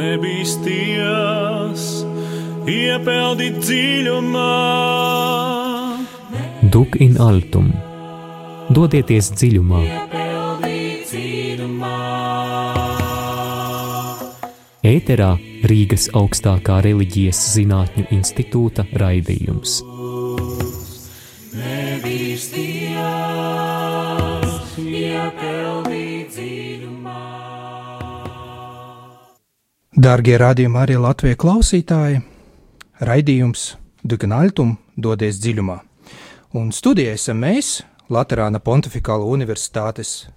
nebīsties, iepeldi dziļumā. Duc in altum, dodieties dziļumā. Ēterā Rīgas augstākā reliģijas zinātņu institūta raidījums. Dārgie radījuma arī Latvijas klausītāji, raidījums Duc in altum, dodies dziļumā. Un studijā esam mēs, Laterāna Pontificāla Universitātes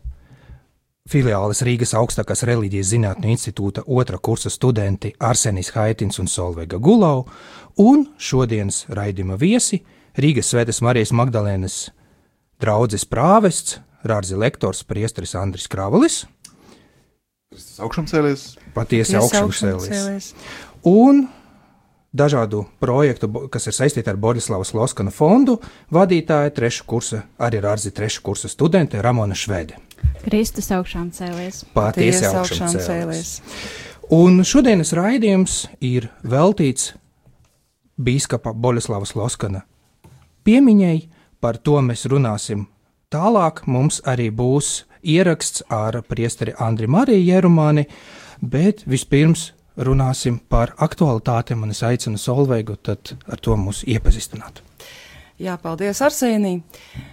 filiāles Rīgas augstākās reliģijas zinātņu institūta 2. kursa studenti Arsenis Haitins un Solveiga Gulau, un šodienas raidījuma viesi Rīgas Svētās Marijas Magdalēnas draudzes prāvests, Rārzi lektors priesteris Andris Kravalis. Kristus augšām cēlies. Patiesi augšām cēlies. Un dažādu projektu, kas ir saistīti ar Boļislavas Loskana fondu, vadītāja 3. kursa, arī Rārzi 3. kursa studente Ramona Švede. Kristus augšām cēlies. Patiesi augšām cēlies. Un šodienas raidījums ir veltīts bīskapa Boļislavas Loskana piemiņai, par to mēs runāsim tālāk. Mums arī būs ieraksts ar priesteri Andri Mariju Jerumāni, bet vispirms runāsim par aktualitātēm, un es aicinu Solveigu tad ar to mūs iepazīstināt. Jā, paldies, Arsenij.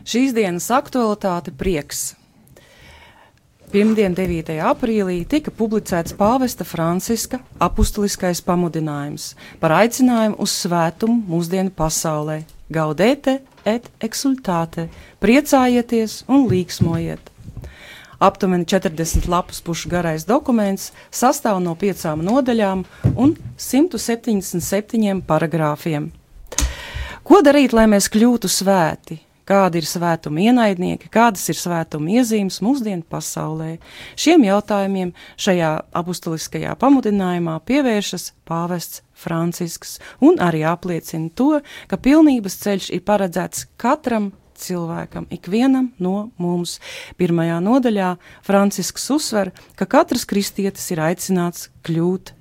Šīs dienas aktualitāte prieks. Pirmdien, 9. aprīlī, tika publicēts pāvesta Franciska apustuliskais pamudinājums par aicinājumu uz svētumu mūsdienu pasaulē. Gaudete et exultate, priecājieties un līksmojiet. Aptuveni 40 lapus pušu garais dokuments sastāv no 5 nodaļām un 177 paragrāfiem. Ko darīt, lai mēs kļūtu svēti? Kādi ir svētuma ienaidnieki, kādas ir svētuma iezīmes mūsdienu pasaulē? Šiem jautājumiem šajā apustuliskajā pamudinājumā pievēršas pāvests Francisks un arī apliecina to, ka pilnības ceļš ir paredzēts katram cilvēkam, ikvienam no mums. 1. nodaļā Francisks uzsver, ka katrs kristietis ir aicināts kļūt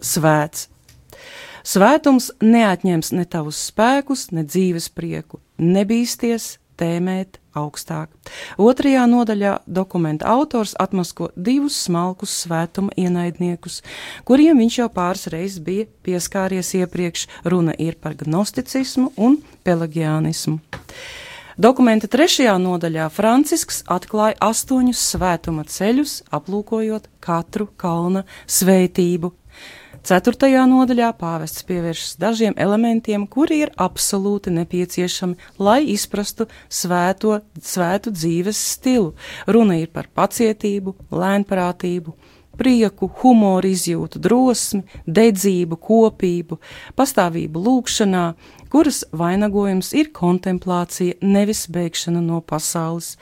svēts. Svētums neatņems ne tavus spēkus, ne dzīves prieku. Nebīsties tēmēt augstāk. 2. nodaļā dokumenta autors atmasko 2 smalkus svētuma ienaidniekus, kuriem viņš jau pāris reizes bija pieskāries iepriekš. Runa ir par gnosticismu un pelagianismu. Dokumenta 3. nodaļā Francisks atklāja 8 svētuma ceļus, aplūkojot katru kalna svētību. 4. nodaļā pāvests pievēršas dažiem elementiem, kuri ir absolūti nepieciešami, lai izprastu svētu dzīves stilu. Runa ir par pacietību, lēnprātību, prieku, humoru izjūtu, drosmi, dedzību, kopību, pastāvību lūgšanā, kuras vainagojums ir kontemplācija, nevis bēgšana no pasaules.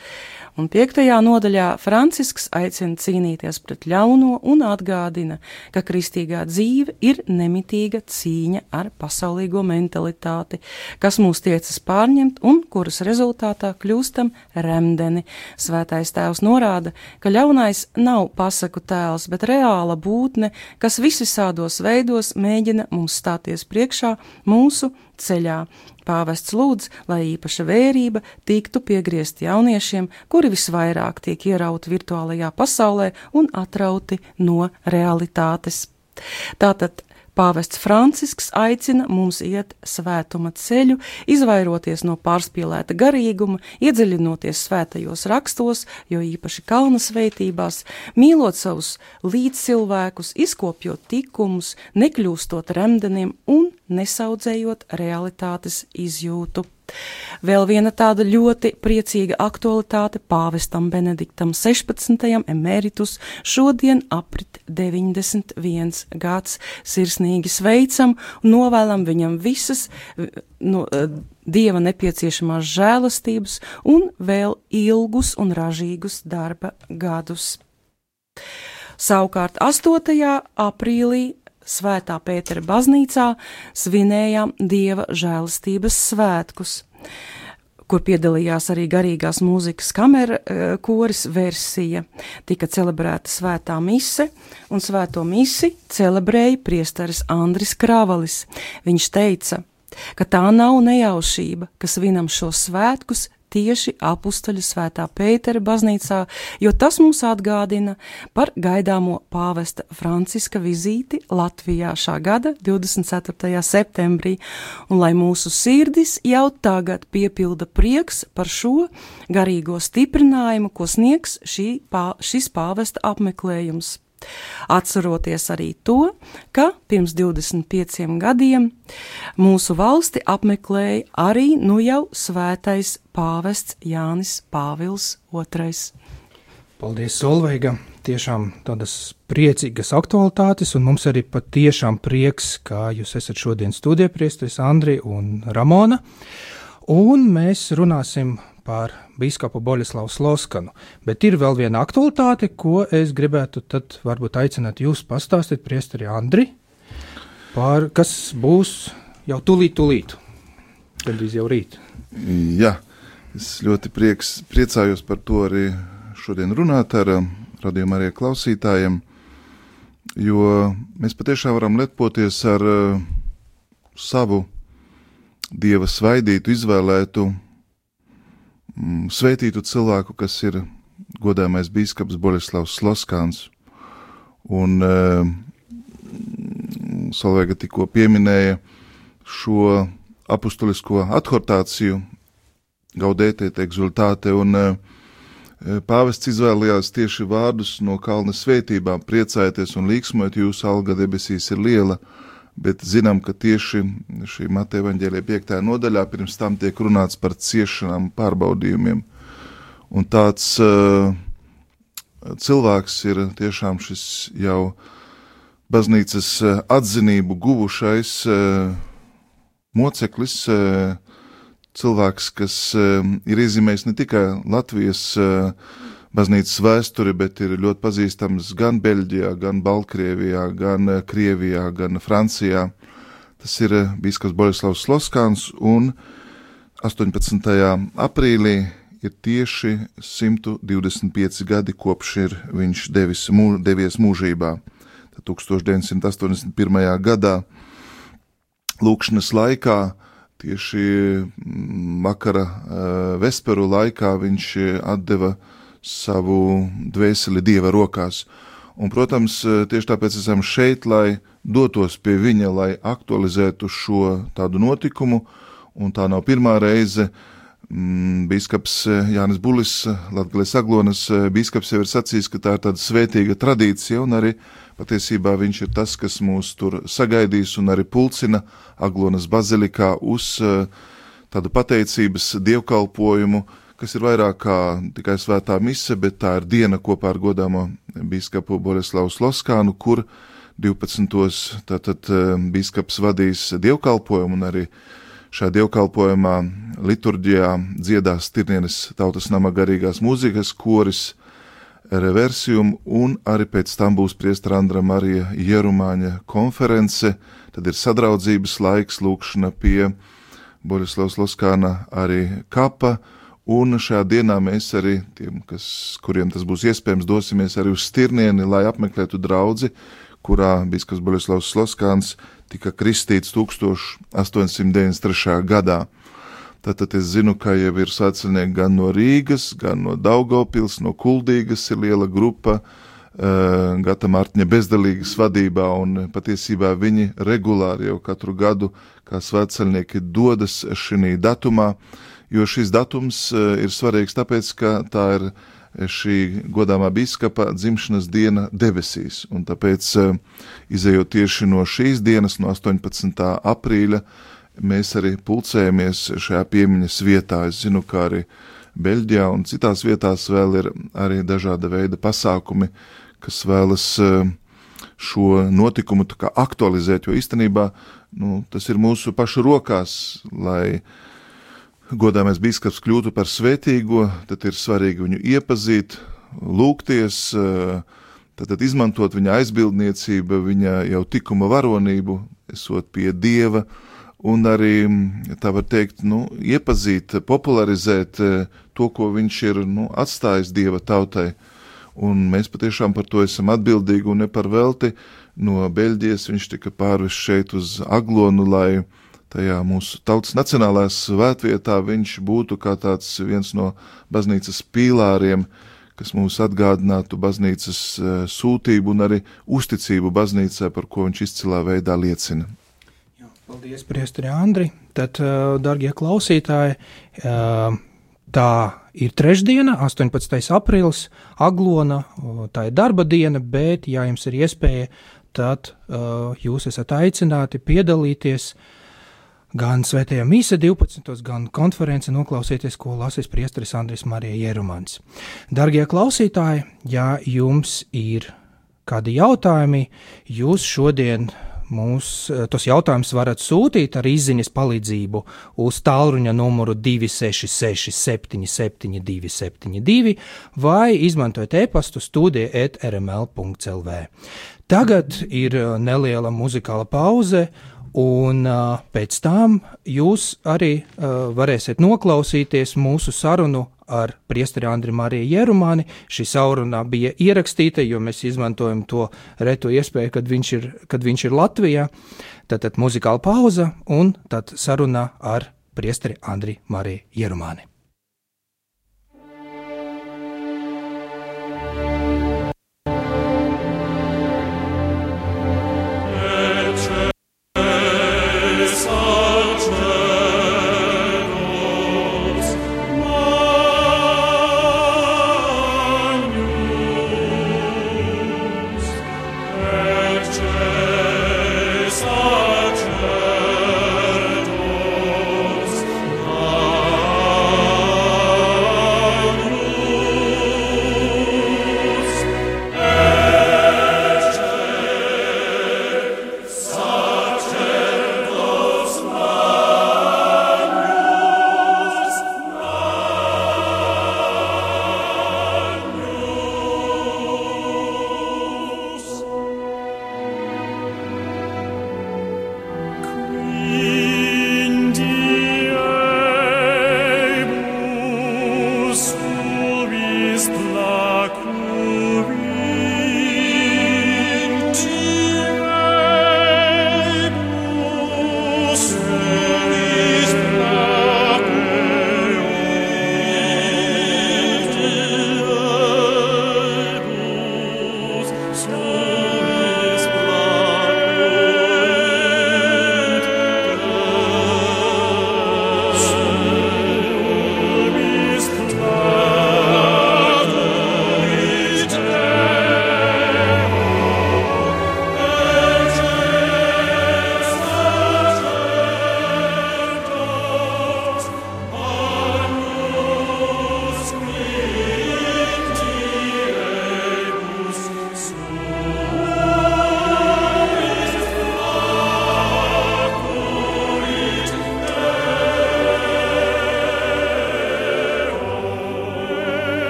Un 5. nodaļā Francisks aicina cīnīties pret ļauno un atgādina, ka kristīgā dzīve ir nemitīga cīņa ar pasaulīgo mentalitāti, kas mūs tiecas pārņemt un kuras rezultātā kļūstam remdeni. Svētais tēvs norāda, ka ļaunais nav pasaku tēls, bet reāla būtne, kas visvisādos veidos mēģina mums stāties priekšā mūsu ceļā. Pāvests lūdz, lai īpaša vērība tiktu piegriezt jauniešiem, kuri visvairāk tiek ierauti virtuālajā pasaulē un atrauti no realitātes. Tātad pāvests Francisks aicina mums iet svētuma ceļu, izvairoties no pārspīlēta garīguma, iedziļinoties svētajos rakstos, jo īpaši kalna svētībās, mīlot savus līdzcilvēkus, izkopjot tikumus, nekļūstot remdeniem un nesaudzējot realitātes izjūtu. Vēl viena tāda ļoti priecīga aktualitāte pāvestam Benediktam 16. emeritus šodien aprit 91 gads. Sirsnīgi sveicam un novēlam viņam visas Dieva nepieciešamās žēlastības un vēl ilgus un ražīgus darba gadus. Savukārt 8. aprīlī Svētā Pētera baznīcā svinējām Dieva žēlastības svētkus, kur piedalījās arī garīgās mūzikas kamera koris versija, tika celebrēta svētā mise, un svēto misi celebrēja priesteris Andris Kravalis. Viņš teica, ka tā nav nejaušība, ka svinam šos svētkus tieši apustuļu svētā Pētera baznīcā, jo tas mums atgādina par gaidāmo pāvesta Franciska vizīti Latvijā šā gada 24. septembrī, un lai mūsu sirdis jau tagad piepilda prieks par šo garīgo stiprinājumu, ko sniegs šis pāvesta apmeklējums. Atceroties arī to, ka pirms 25 gadiem mūsu valsti apmeklēja arī nu jau svētais pāvests Jānis Pāvils II. Paldies, Solveiga! Tiešām tādas priecīgas aktualitātes, un mums arī patiešām prieks, kā jūs esat šodien studijpriesteris Andri un Ramona, un mēs runāsim par bīskapu Boļislavu Sloskanu, bet ir vēl viena aktualitāte, ko es gribētu tad varbūt aicināt jūs pastāstīt, priesteri Andri, par kas būs jau tūlīt, gandrīz jau rīt. Jā, es ļoti priecājos par to arī šodien runāt ar radījuma arī klausītājiem, jo mēs patiešām varam lepoties ar savu Dieva svaidītu, izvēlētu, svētītu cilvēku, kas ir godājamais bīskaps Boļislavs Sloskans. Un Solveiga tikko pieminēja šo apustulisko adhortāciju Gaudete et exultate, un pāvests izvēlējās tieši vārdus no kalna svētībām: priecājieties un līksmojiet, jūsu alga debesīs ir liela. Bet zinām, ka tieši šī Mateja evaņģēlija 5. nodaļā pirms tam tiek runāts par ciešanām, pārbaudījumiem. Un tāds cilvēks ir tiešām šis jau baznīcas atzinību guvušais moceklis, cilvēks, kas ir iezīmējis ne tikai Latvijas baznīcas vēsturi, bet ir ļoti pazīstams gan Beļģijā, gan Baltkrievijā, gan Krievijā, gan Francijā. Tas ir bīskaps Boļislavs Sloskans, un 18. aprīlī ir tieši 125 gadi, kopš ir viņš devies mūžībā. Tad 1981. gadā lūkšanas laikā, tieši vakara vesperu laikā, viņš atdeva savu dvēseli Dieva rokās. Un, protams, tieši tāpēc esam šeit, lai dotos pie viņa, lai aktualizētu šo tādu notikumu, un tā nav pirmā reize. Bīskaps Jānis Bulis, Latgales Aglonas bīskaps, jau ir sacījis, ka tā ir tāda svētīga tradīcija, un arī patiesībā viņš ir tas, kas mūs tur sagaidīs un arī pulcina Aglonas bazilikā uz tādu pateicības dievkalpojumu, kas ir vairāk kā tikai svētā mise, bet tā ir diena kopā ar godāmo bīskapu Boļislavu Sloskanu, kur 12. tātad bīskaps vadīs dievkalpojumu, un arī šajā dievkalpojumā liturģijā dziedās Tirnienes tautas nama garīgās mūzikas koris Reversium, un arī pēc tam būs priestera Andra Marija Jerumāņa konference. Tad ir sadraudzības laiks, lūkšana pie Boļislava Sloskana arī kapa. Un šajā dienā mēs arī tiem, kuriem tas būs iespējams, dosimies arī uz Stirnieni, lai apmeklētu draudzi, kurā bīskaps Boļislavs Sloskans tika kristīts 1893. gadā. Tātad es zinu, ka jau ir svētceļnieki gan no Rīgas, gan no Daugavpils, no Kuldīgas ir liela grupa, Gata Mārtiņa bezdalīgas vadībā, un patiesībā viņi regulāri jau katru gadu kā svētceļnieki dodas šī datumā, jo šis datums ir svarīgs tāpēc, ka tā ir šī godāmā bīskapa dzimšanas diena debesīs, un tāpēc, izejot tieši no šīs dienas, no 18. aprīļa, mēs arī pulcējamies šajā piemiņas vietā. Es zinu, ka arī Beļģijā un citās vietās vēl ir arī dažāda veida pasākumi, kas vēlas šo notikumu tā kā aktualizēt, jo īstenībā tas ir mūsu pašu rokās, lai godāmais bīskaps kļūtu par svētīgo, tad ir svarīgi viņu iepazīt, lūgties, tad izmantot viņa aizbildniecību, viņa jau tikuma varonību, esot pie Dieva, un arī, tā var teikt, iepazīt, popularizēt to, ko viņš ir atstājis Dieva tautai. Un mēs patiešām par to esam atbildīgi un ne par velti. No Beļģijas viņš tika pārvests šeit uz Aglonu, lai tajā mūsu tautas nacionālā svētvietā viņš būtu kā tāds viens no baznīcas pīlāriem, kas mums atgādinātu baznīcas sūtību un arī uzticību baznīcai, par ko viņš izcilā veidā liecina. Jā, paldies, priesteri Andri. Tad, dargie klausītāji, tā ir trešdiena, 18. aprīlis, Aglona, tā ir darba diena, bet, ja jums ir iespēja, tad jūs esat aicināti piedalīties gan svētajā mīsa 12. gan konference noklausieties, ko lasīs priesteris Andris Marija Jerumans. Dargie klausītāji, ja jums ir kādi jautājumi, jūs šodien tos jautājumus varat sūtīt ar izziņas palīdzību uz tālruņa numuru 266 77 272 vai izmantojot e-pastu studija@rml.lv. Tagad ir neliela muzikāla pauze, un pēc tam jūs arī varēsiet noklausīties mūsu sarunu ar priesteri Andri Mariju Jerumani. Šī saruna bija ierakstīta, jo mēs izmantojam to reto iespēju, kad viņš ir Latvijā. Tātad muzikāla pauza un tad saruna ar priesteri Andri Mariju Jerumani.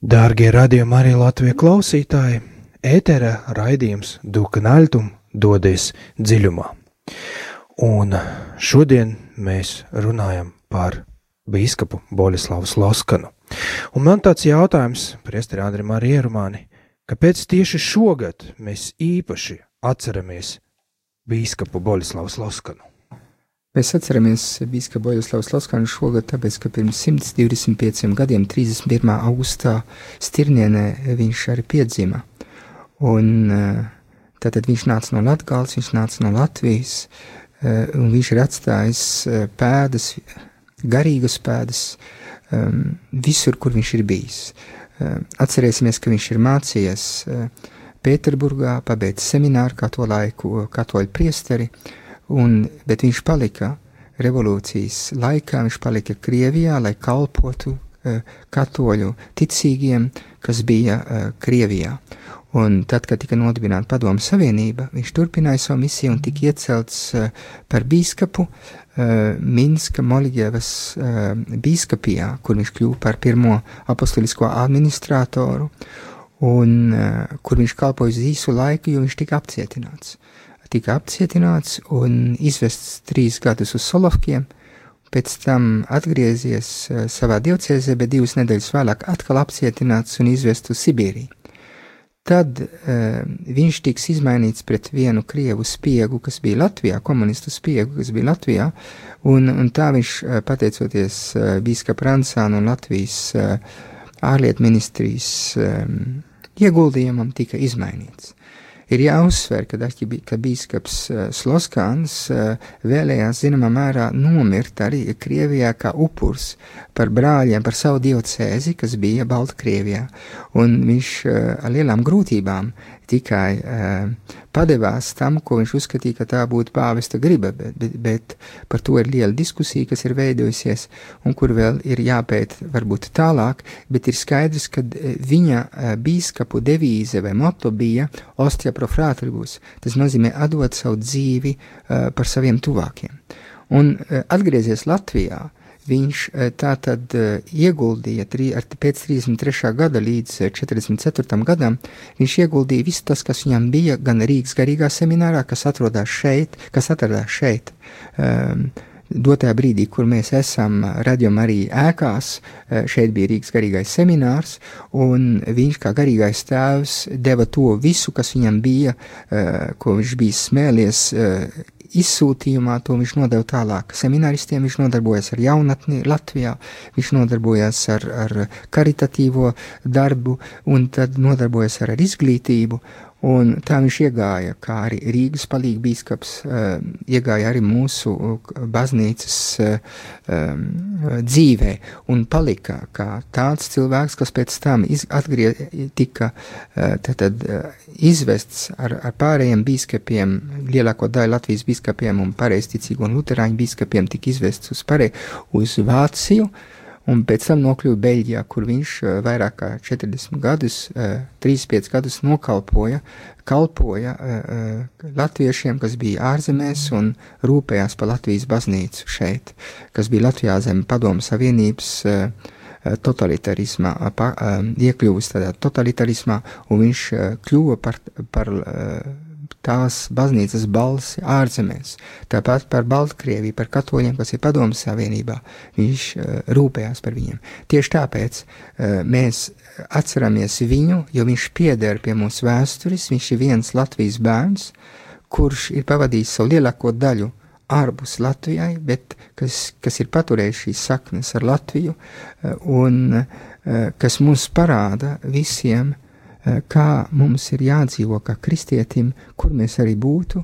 Dārgie radījuma arī Latvijas klausītāji, ētera raidījums Dukanaļtum dodies dziļumā. Un šodien mēs runājam par bīskapu Boļislavu Sloskanu. Un man tāds jautājums, priesteri Andri Mariju Jerumani, kāpēc tieši šogad mēs īpaši atceramies bīskapu Boļislavu Sloskanu? Mēs atceramies bīskapu Boļuslavu Sloskanu šogad, tāpēc, ka pirms 125 gadiem, 31. augustā Stirnienē viņš arī piedzima. Un tātad viņš nāca no Latgales, viņš nāca no Latvijas, un viņš ir atstājis pēdas, garīgas pēdas, visur, kur viņš ir bijis. Atcerēsimies, ka viņš ir mācījies Pēterburgā, pabeidz semināru kā to laiku katoļu priesteri, bet viņš palika revolūcijas laikā, viņš palika Krievijā, lai kalpotu katoļu ticīgiem, kas bija Krievijā. Un tad, kad tika nodibināta Padomu Savienība, viņš turpināja savu misiju un tika iecelts par bīskapu Minska Moļģevas bīskapijā, kur viņš kļuva par pirmo apostolisko administratoru, un kur viņš kalpoja uz īsu laiku, jo viņš tika apcietināts un izvests 3 gadus uz Solovkiem, pēc tam atgriezies savā diocēzē, bet 2 nedēļas vēlāk atkal apcietināts un izvests uz Sibīriju. Tad viņš tiks izmainīts pret vienu krievu spiegu, kas bija Latvijā, komunistu spiegu, kas bija Latvijā, un tā viņš, pateicoties bīskapa Rancāna un Latvijas ārlietu ministrijas ieguldījumam, tika izmainīts. Ir jāuzsver, ka bīskaps Sloskans vēlējās zināmā mērā nomirt arī Krievijā kā upurs par brāļiem, par savu diocēzi, kas bija Baltkrievijā. Un viņš ar lielām grūtībām tikai padevās tam, ko viņš uzskatīja, ka tā būtu pāvesta griba, bet par to ir liela diskusija, kas ir veidojusies un kur vēl ir jāpēt varbūt tālāk, bet ir skaidrs, ka viņa bīskapu devīze vai moto bija Ostia pro fratribus, tas nozīmē atdot savu dzīvi par saviem tuvākiem. Un atgriezies Latvijā, viņš tātad ieguldīja pēc 33. gada līdz 44. gadam, viņš ieguldīja visu tas, kas viņam bija, gan Rīgas garīgā seminārā, kas atradās šeit, dotajā brīdī, kur mēs esam Radio Marija ēkās, šeit bija Rīgas garīgais seminārs, un viņš kā garīgais tēvs deva to visu, kas viņam bija, ko viņš bija smēlies izsūtījumā, to viņš nodeva tālāk semināristiem, viņš nodarbojas ar jaunatni Latvijā, viņš nodarbojas ar karitatīvo darbu, un tad nodarbojas ar izglītību, un tā viņš iegāja, kā arī Rīgas palīgbīskaps, iegāja arī mūsu baznīcas dzīvē, un palika kā tāds cilvēks, kas pēc tam tika izvests ar pārējiem bīskapiem, lielāko daļu Latvijas bīskapiem un pareizticīgo un luterāņu bīskapiem tika izvests uz Vāciju, un pēc tam nokļuva Beļģijā, kur viņš vairāk kā 40 gadus, 35 gadus kalpoja latviešiem, kas bija ārzemēs un rūpējās par Latvijas baznīcu šeit, kas bija Latvijā zem Padomu Savienības totalitarismā, iekļuvis tādā totalitarismā, un viņš kļuva par tās baznīcas balsi ārzemēs. Tāpat par Baltkrieviju, par katoļiem, kas ir Padomu Savienībā, viņš rūpējās par viņiem. Tieši tāpēc mēs atceramies viņu, jo viņš pieder pie mūsu vēstures, viņš ir viens Latvijas bērns, kurš ir pavadījis savu lielāko daļu ārpus Latvijai, bet kas ir paturējis šīs saknes ar Latviju, un kas mums parāda visiem, kā mums ir jādzīvo kā kristietim, kur mēs arī būtu,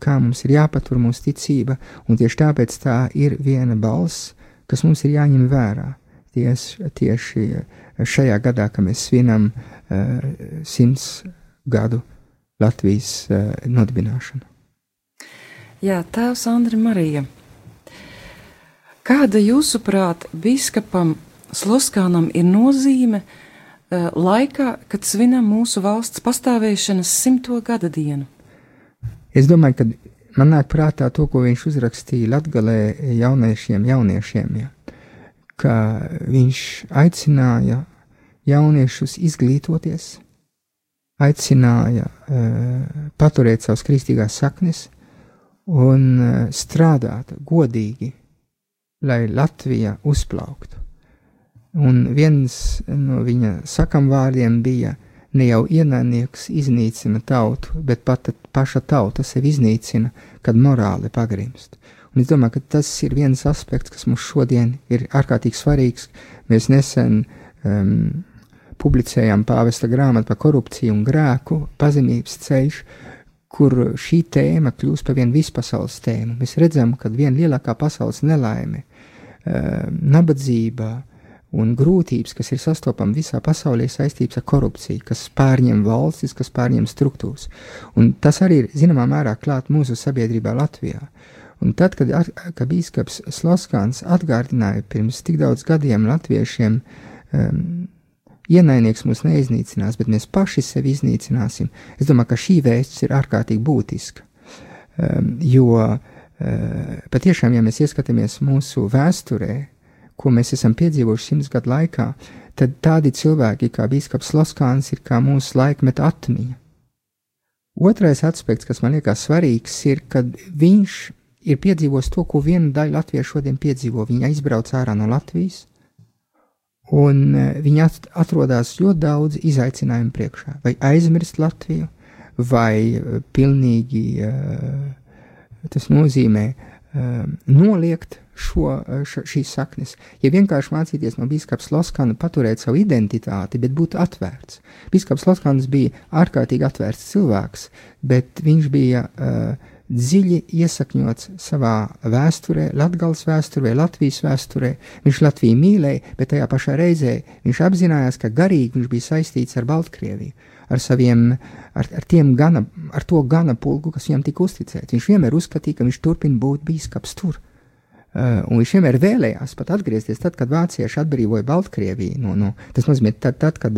kā mums ir jāpatur mūsu ticība, un tieši tāpēc tā ir viena balss, kas mums ir jāņem vērā. Tieši šajā gadā, kad mēs svinam 100 gadu Latvijas nodibināšanu. Jā, tēvs Andri Marija, kāda jūsuprāt bīskapam Sloskānam ir nozīme laikā, kad svinam mūsu valsts pastāvēšanas 100. gada dienu? Es domāju, ka man nāk prātā to, ko viņš uzrakstīja Latgalē jauniešiem, ja, ka viņš aicināja jauniešus izglītoties, aicināja paturēt savas kristīgās saknes un strādāt godīgi, lai Latvija uzplauktu. Un viens no viņa sakamvārdiem bija: ne jau ienaidnieks iznīcina tautu, bet pat paša tauta sevi iznīcina, kad morāli pagrimst. Un es domāju, ka tas ir viens aspekts, kas mums šodien ir ārkārtīgi svarīgs. Mēs nesen publicējām pāvesta grāmatu par korupciju un grēku, pazemības ceļš, kur šī tēma kļūst par vienu vispasaules tēmu. Mēs redzam, ka viena lielākā pasaules nelaime, nabadzība un grūtības, kas ir sastopama visā pasaulē, saistības ar korupciju, kas pārņem valstis, kas pārņem struktūras. Un tas arī ir, zināmā mērā, klāt mūsu sabiedrībā Latvijā. Un tad, kad bīskaps Sloskāns atgādināja pirms tik daudz gadiem latviešiem, ienaidnieks mūs neiznīcinās, bet mēs paši sevi iznīcināsim, es domāju, ka šī vēsts ir ārkārtīgi būtiska. Jo patiešām, ja mēs ieskatāmies mūsu vēsturē, ko mēs esam piedzīvojuši 100 gadu laikā, tad tādi cilvēki kā bīskaps Sloskāns ir kā mūsu laikmeta atmiņa. Otrais aspekts, kas man liekas svarīgs, ir, kad viņš ir piedzīvojis to, ko viena daļa latviešu šodien piedzīvo. Viņa izbrauc ārā no Latvijas, un viņa atrodas ļoti daudz izaicinājumu priekšā. Vai aizmirst Latviju, vai pilnīgi tas nozīmē noliegt šīs saknes. Ja vienkārši mācīties no bīskaps Sloskāna paturēt savu identitāti, bet būt atvērts. Bīskaps Sloskāns bija ārkārtīgi atvērts cilvēks, bet viņš bija dziļi iesakņots savā vēsturē, Latgales vēsturē, Latvijas vēsturē. Viņš Latviju mīlēja, bet tajā pašā reizē viņš apzinājās, ka garīgi viņš bija saistīts ar Baltkrieviju, ar to gana pulku, kas viņam tika uzticēts. Viņš vienmēr uzskatīja, ka viņš turpina būt bīskaps tur. Un viņš vienmēr vēlējās pat atgriezties tad, kad vācieši atbrīvoja Baltkrieviju. Tas nozīmē, tad, kad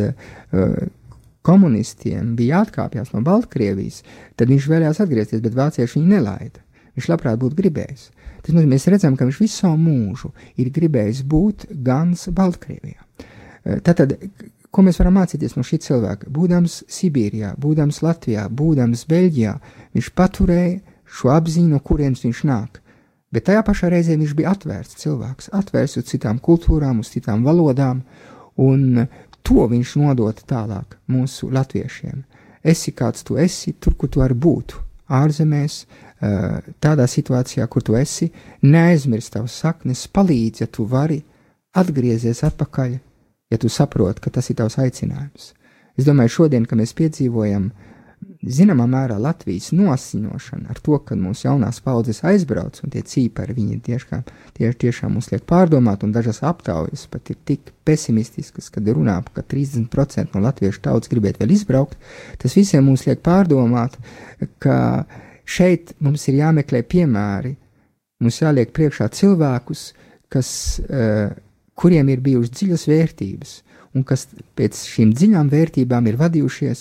komunistiem bija jāatkāpjas no Baltkrievijas, tad viņš vēlējās atgriezties, bet vācieši viņu nelaida. Viņš labprāt būtu gribējis. Tas nozīmē, mēs redzam, ka viņš visu savu mūžu ir gribējis būt gans Baltkrievijā. Tātad, ko mēs varam mācīties no šī cilvēka? Būdams Sibīrijā, būdams Latvijā, būdams Beļģijā, viņš paturēja šo apziņu, no kurienes viņš nāk. Bet tajā pašā reizē viņš bija atvērts cilvēks, atvērts uz citām kultūrām, uz citām valodām, un to viņš nodota tālāk mūsu latviešiem. Esi kāds tu esi, tur, kur tu vari būt, ārzemēs, tādā situācijā, kur tu esi, neaizmirst tavas saknes, palīdz, ja tu vari, atgriezies atpakaļ, ja tu saproti, ka tas ir tavs aicinājums. Es domāju, šodien, kad mēs piedzīvojam zināmā mērā Latvijas nosiņošana ar to, ka mūsu jaunās paudzes aizbrauc, un tie cīpari viņi tiešām mums liek pārdomāt, un dažas aptaujas pat ir tik pesimistiskas, kad runā, ka 30% no latviešu tautas gribētu vēl izbraukt, tas visiem mums liek pārdomāt, ka šeit mums ir jāmeklē piemēri, mums jāliek priekšā cilvēkus, kuriem ir bijušas dziļas vērtības, un kas pēc šīm dziļām vērtībām ir vadījušies,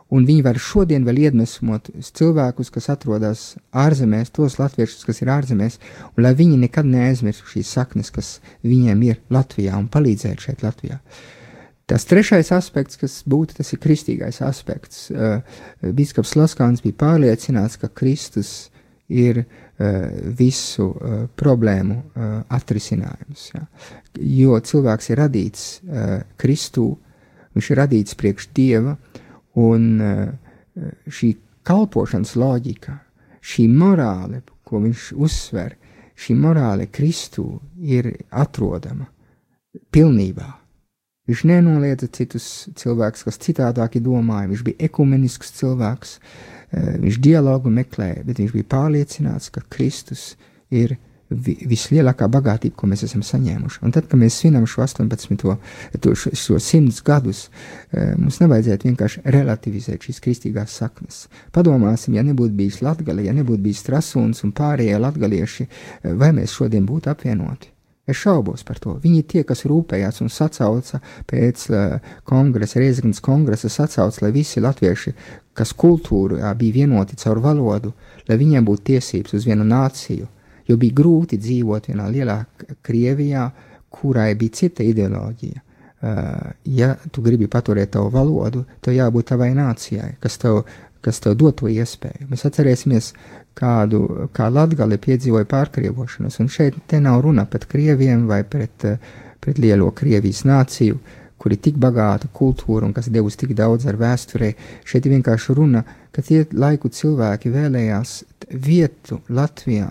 un viņi var šodien vēl iedvesmot cilvēkus, kas atrodas ārzemēs, tos latviešus, kas ir ārzemēs, un lai viņi nekad neaizmirstu šīs saknes, kas viņiem ir Latvijā, un palīdzēt šeit Latvijā. Tas trešais aspekts, kas būtu, tas ir kristīgais aspekts. Bīskaps Sloskāns bija pārliecināts, ka Kristus ir visu problēmu atrisinājums. Ja. Jo cilvēks ir radīts Kristū, viņš ir radīts priekš Dieva, un šī kalpošanas loģika, šī morāle, ko viņš uzsver, šī morāle Kristū ir atrodama pilnībā. Viņš nenoliedza citus cilvēkus, kas citādāki domāja, viņš bija ekumenisks cilvēks, viņš dialogu meklēja, bet viņš bija pārliecināts, ka Kristus ir vislielākā bagātība, ko mēs esam saņēmuši. Un tad, kad mēs svinam šo 100 gadus, mums nevajadzētu vienkārši relativizēt šīs kristīgās saknes. Padomāsim, ja nebūtu bijis Latgale, ja nebūtu bijis Trasuns un pārējie latgalieši, vai mēs šodien būtu apvienoti? Es šaubos par to. Viņi tie, kas rūpējās un sacauca pēc kongresa, Rēzeknes kongresa sacauca, lai visi latvieši, kas kultūrā bija vienoti caur valodu, lai viņiem būtu tiesības uz vienu nāciju, jo bija grūti dzīvot vienā lielā Krievijā, kurai bija cita ideoloģija. Ja tu gribi paturēt tavu valodu, tev jābūt tavai nācijai, kas tev dod to iespēju. Mēs atcerēsimies, kā Latgale piedzīvoja pārkrievošanos, un šeit te nav runa pret krieviem vai pret lielo Krievijas nāciju, kur ir tik bagāta kultūra un kas devusi tik daudz ar vēsturē. Šeit ir vienkārši runa, ka tie laiku cilvēki vēlējās vietu Latvijā,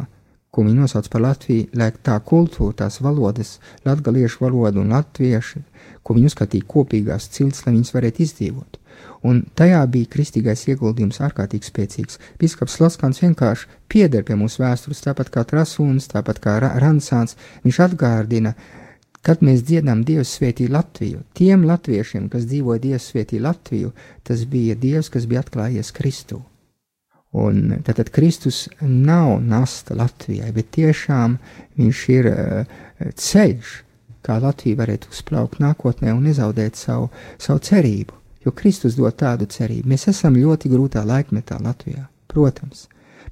ko viņi nosauc par Latviju, lai tā kultūra, tās valodas, latgaliešu valoda un latviešu, ko viņi uzskatīja kopīgās cilts, lai viņas varētu izdzīvot. Un tajā bija kristīgais ieguldījums ārkārtīgi spēcīgs. Bīskaps Sloskans vienkārši pieder pie mūsu vēstures, tāpat kā Trasuns, tāpat kā Ransāns. Viņš atgārdina, kad mēs dziedām Dievs svētī Latviju. Tiem latviešiem, kas dzīvoja Dievs svētī Latviju, tas bija Dievs, kas bija atklājies Kristū. Un tātad Kristus nav nasta Latvijai, bet tiešām viņš ir ceļš, kā Latvija varētu uzplaukt nākotnē un nezaudēt savu cerību. Jo Kristus dod tādu cerību. Mēs esam ļoti grūtā laikmetā Latvijā, protams,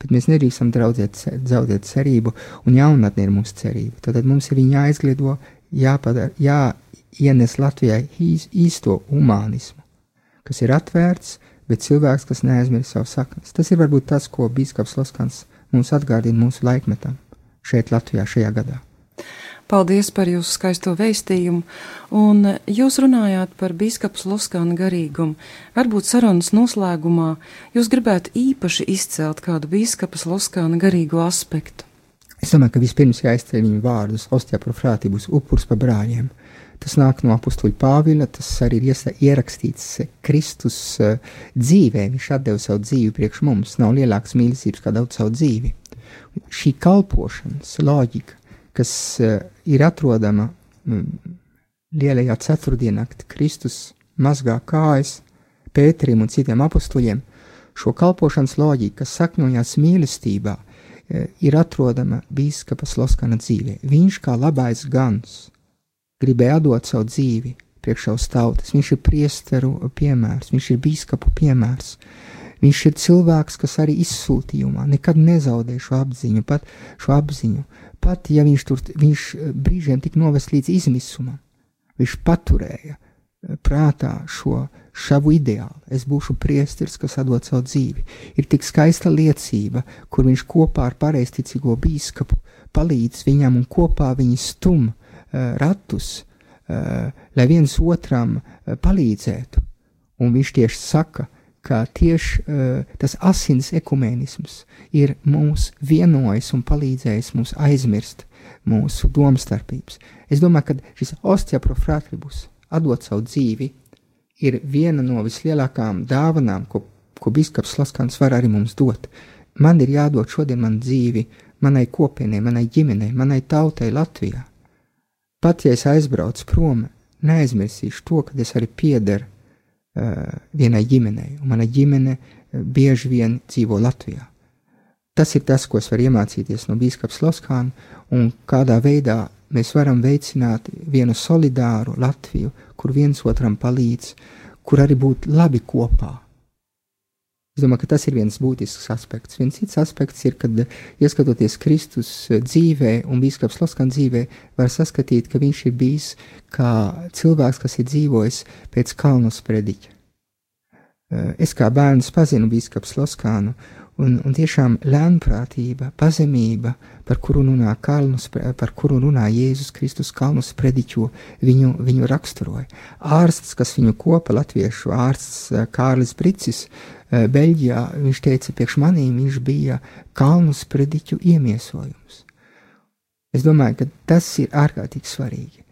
bet mēs nedrīkstam zaudēt cerību, un jaunatne ir mūsu cerība. Tad mums ir viņa jāizgliedo, jāienes Latvijai īsto humānismu, kas ir atvērts, bet cilvēks, kas neaizmirst savu saknes. Tas ir varbūt tas, ko bīskaps Sloskans mums atgādina mūsu laikmetam šeit Latvijā šajā gadā. Paldies par jūsu skaisto vēstījumu, un jūs runājāt par bīskapa Sloskana garīgumu. Varbūt sarunas noslēgumā jūs gribētu īpaši izcelt kādu bīskapa Sloskana garīgo aspektu. Es domāju, ka vispirms jāizceļ viņu vārdus Ostia pro fratibus, upurs par brāļiem. Tas nāk no apustuļa Pāvila, tas arī ir ierakstīts Kristus dzīvē, viņš atdeva savu dzīvi priekš mums, nav lielākas mīlestības kā daudz savu dzīvi. Šī kalpošanas loģika, kas ir atrodama lielajā ceturtdienā, kad Kristus mazgā kājas Pēterim un citiem apustuļiem, šo kalpošanas loģiku, kas sakņojās mīlestībā, ir atrodama bīskapa Sloskana dzīvē. Viņš kā labais gans gribēja atdot savu dzīvi priekš savas tautas. Viņš ir priesteru piemērs, viņš ir bīskapu piemērs. Viņš ir cilvēks, kas arī izsūtījumā nekad nezaudē šo apziņu. Pat ja viņš brīžiem tik novest līdz izmisumam, viņš paturēja prātā šavu ideālu. Es būšu priesteris, kas atdod savu dzīvi. Ir tik skaista liecība, kur viņš kopā ar pareizticīgo bīskapu palīdz viņam un kopā viņi stum ratus, lai viens otram palīdzētu. Un viņš tieši saka, ka tieši tas asins ekumēnisms ir mūs vienojis un palīdzējis mums aizmirst mūsu domstarpības. Es domāju, ka šis Ostia pro fratibus, atdot savu dzīvi, ir viena no vislielākām dāvanām, ko bīskaps Sloskans var arī mums dot. Man ir jādod šodien man dzīvi manai kopienai, manai ģimenei, manai tautai Latvijā. Pat ja es aizbraucu prom, neaizmirsīšu to, ka es arī piederu vienai ģimenei, un mana ģimene bieži vien dzīvo Latvijā. Tas ir tas, ko es varu iemācīties no bīskapa Sloskana, un kādā veidā mēs varam veicināt vienu solidāru Latviju, kur viens otram palīdz, kur arī būt labi kopā. Es domāju, ka tas ir viens būtisks aspekts. Viens cits aspekts ir, kad ieskatoties Kristus dzīvē un bīskaps Sloskana dzīvē, var saskatīt, ka viņš ir bijis kā cilvēks, kas ir dzīvojis pēc Kalnus prediķa. Es kā bērns pazinu bīskapu Sloskanu, un tiešām lēnprātība, pazemība, par kuru runā Jēzus Kristus Kalnus prediķo, viņu raksturoja. Ārsts, kas viņu kopa, latviešu ārsts Kārlis Bricis, Beļģijā, viņš teica, priekš manīm viņš bija Kalnus prediķu iemiesojums. Es domāju, ka tas ir ārkārtīgi svarīgi.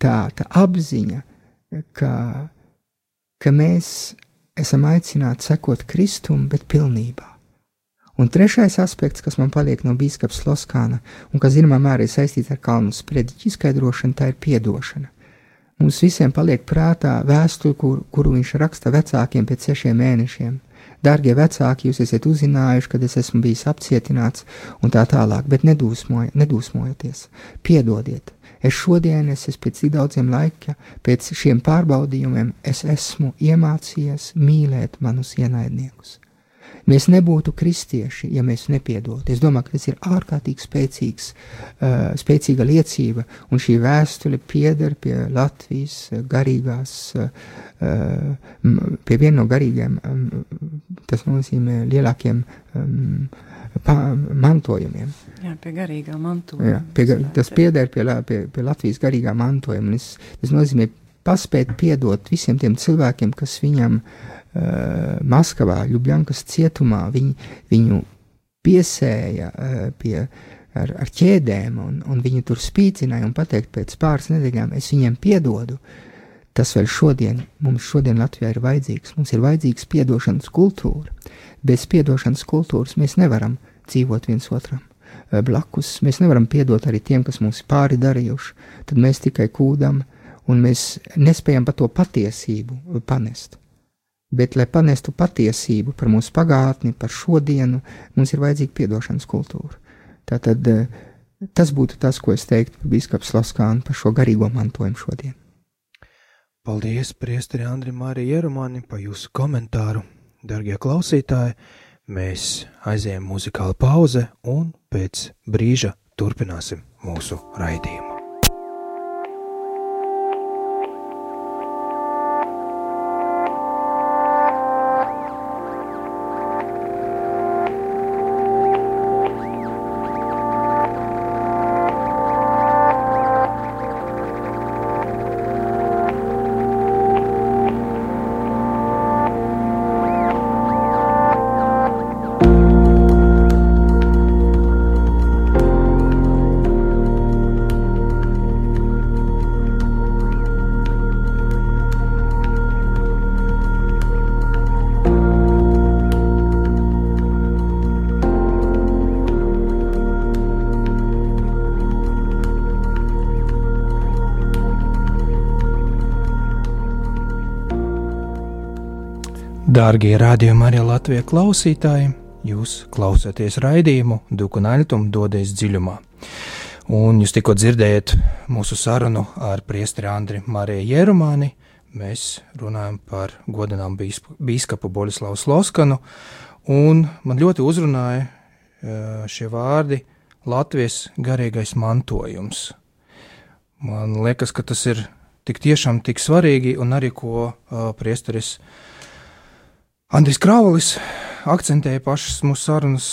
Tā apziņa, ka mēs esam aicināti sekot Kristum, bet pilnībā. Un trešais aspekts, kas man paliek no bīskapa Sloskana, un kas zināmā mērā ir saistīts ar Kalnus prediķu izskaidrošanu, tā ir piedošana. Mums visiem paliek prātā vēstule, kuru viņš raksta vecākiem pēc 6 mēnešiem. Dārgie vecāki, jūs esat uzzinājuši, kad es esmu bijis apcietināts un tā tālāk, bet nedūsmojieties, piedodiet. Es pēc tik daudziem laika, pēc šiem pārbaudījumiem, es esmu iemācījies mīlēt manus ienaidniekus. Mēs nebūtu kristieši, ja mēs nepiedotu. Es domāju, ka tas ir ārkārtīgi spēcīga liecība, un šī vēstule pieder pie Latvijas garīgās, pie viena no garīgiem, tas nozīmē lielākiem mantojumiem. Jā, pie garīgā mantojuma. Jā, tas pieder pie Latvijas garīgā mantojuma, un tas nozīmē paspēt piedot visiem tiem cilvēkiem, kas viņam Maskavā, Ļubļankas cietumā, viņu piesēja ar ķēdēm, un viņi tur spīcināja un pateikt pēc pāris nedēļām, es viņiem piedodu. Tas vēl mums šodien Latvijā ir vajadzīgs. Mums ir vajadzīgs piedošanas kultūra. Bez piedošanas kultūras mēs nevaram dzīvot viens otram blakus. Mēs nevaram piedot arī tiem, kas mums ir pāri darījuši. Tad mēs tikai kūdam, un mēs nespējam par to patiesību panest. Bet, lai panestu patiesību par mūsu pagātni, par šodienu, mums ir vajadzīga piedošanas kultūra. Tātad tas būtu tas, ko es teiktu par bīskapu Sloskānu par šo garīgo mantojumu šodien. Paldies, priesteri Andrim Māri Jerumani, par jūsu komentāru. Dargie klausītāji, mēs aizējam muzikāla pauze un pēc brīža turpināsim mūsu raidījumu. Dārgie rādījumi arī Latvijas klausītāji, jūs klausāties raidījumu Duku un Aļtumu dodies dziļumā. Un jūs tikko dzirdējat mūsu sarunu ar priesteri Andri Mariju Jerumani. Mēs runājam par godinām bīskapu Boļislavu Sloskanu, un man ļoti uzrunāja šie vārdi Latvijas garīgais mantojums. Man liekas, ka tas ir tik tiešām tik svarīgi, un arī ko priesteris Andris Kraulis akcentēja pašas mūsu sarunas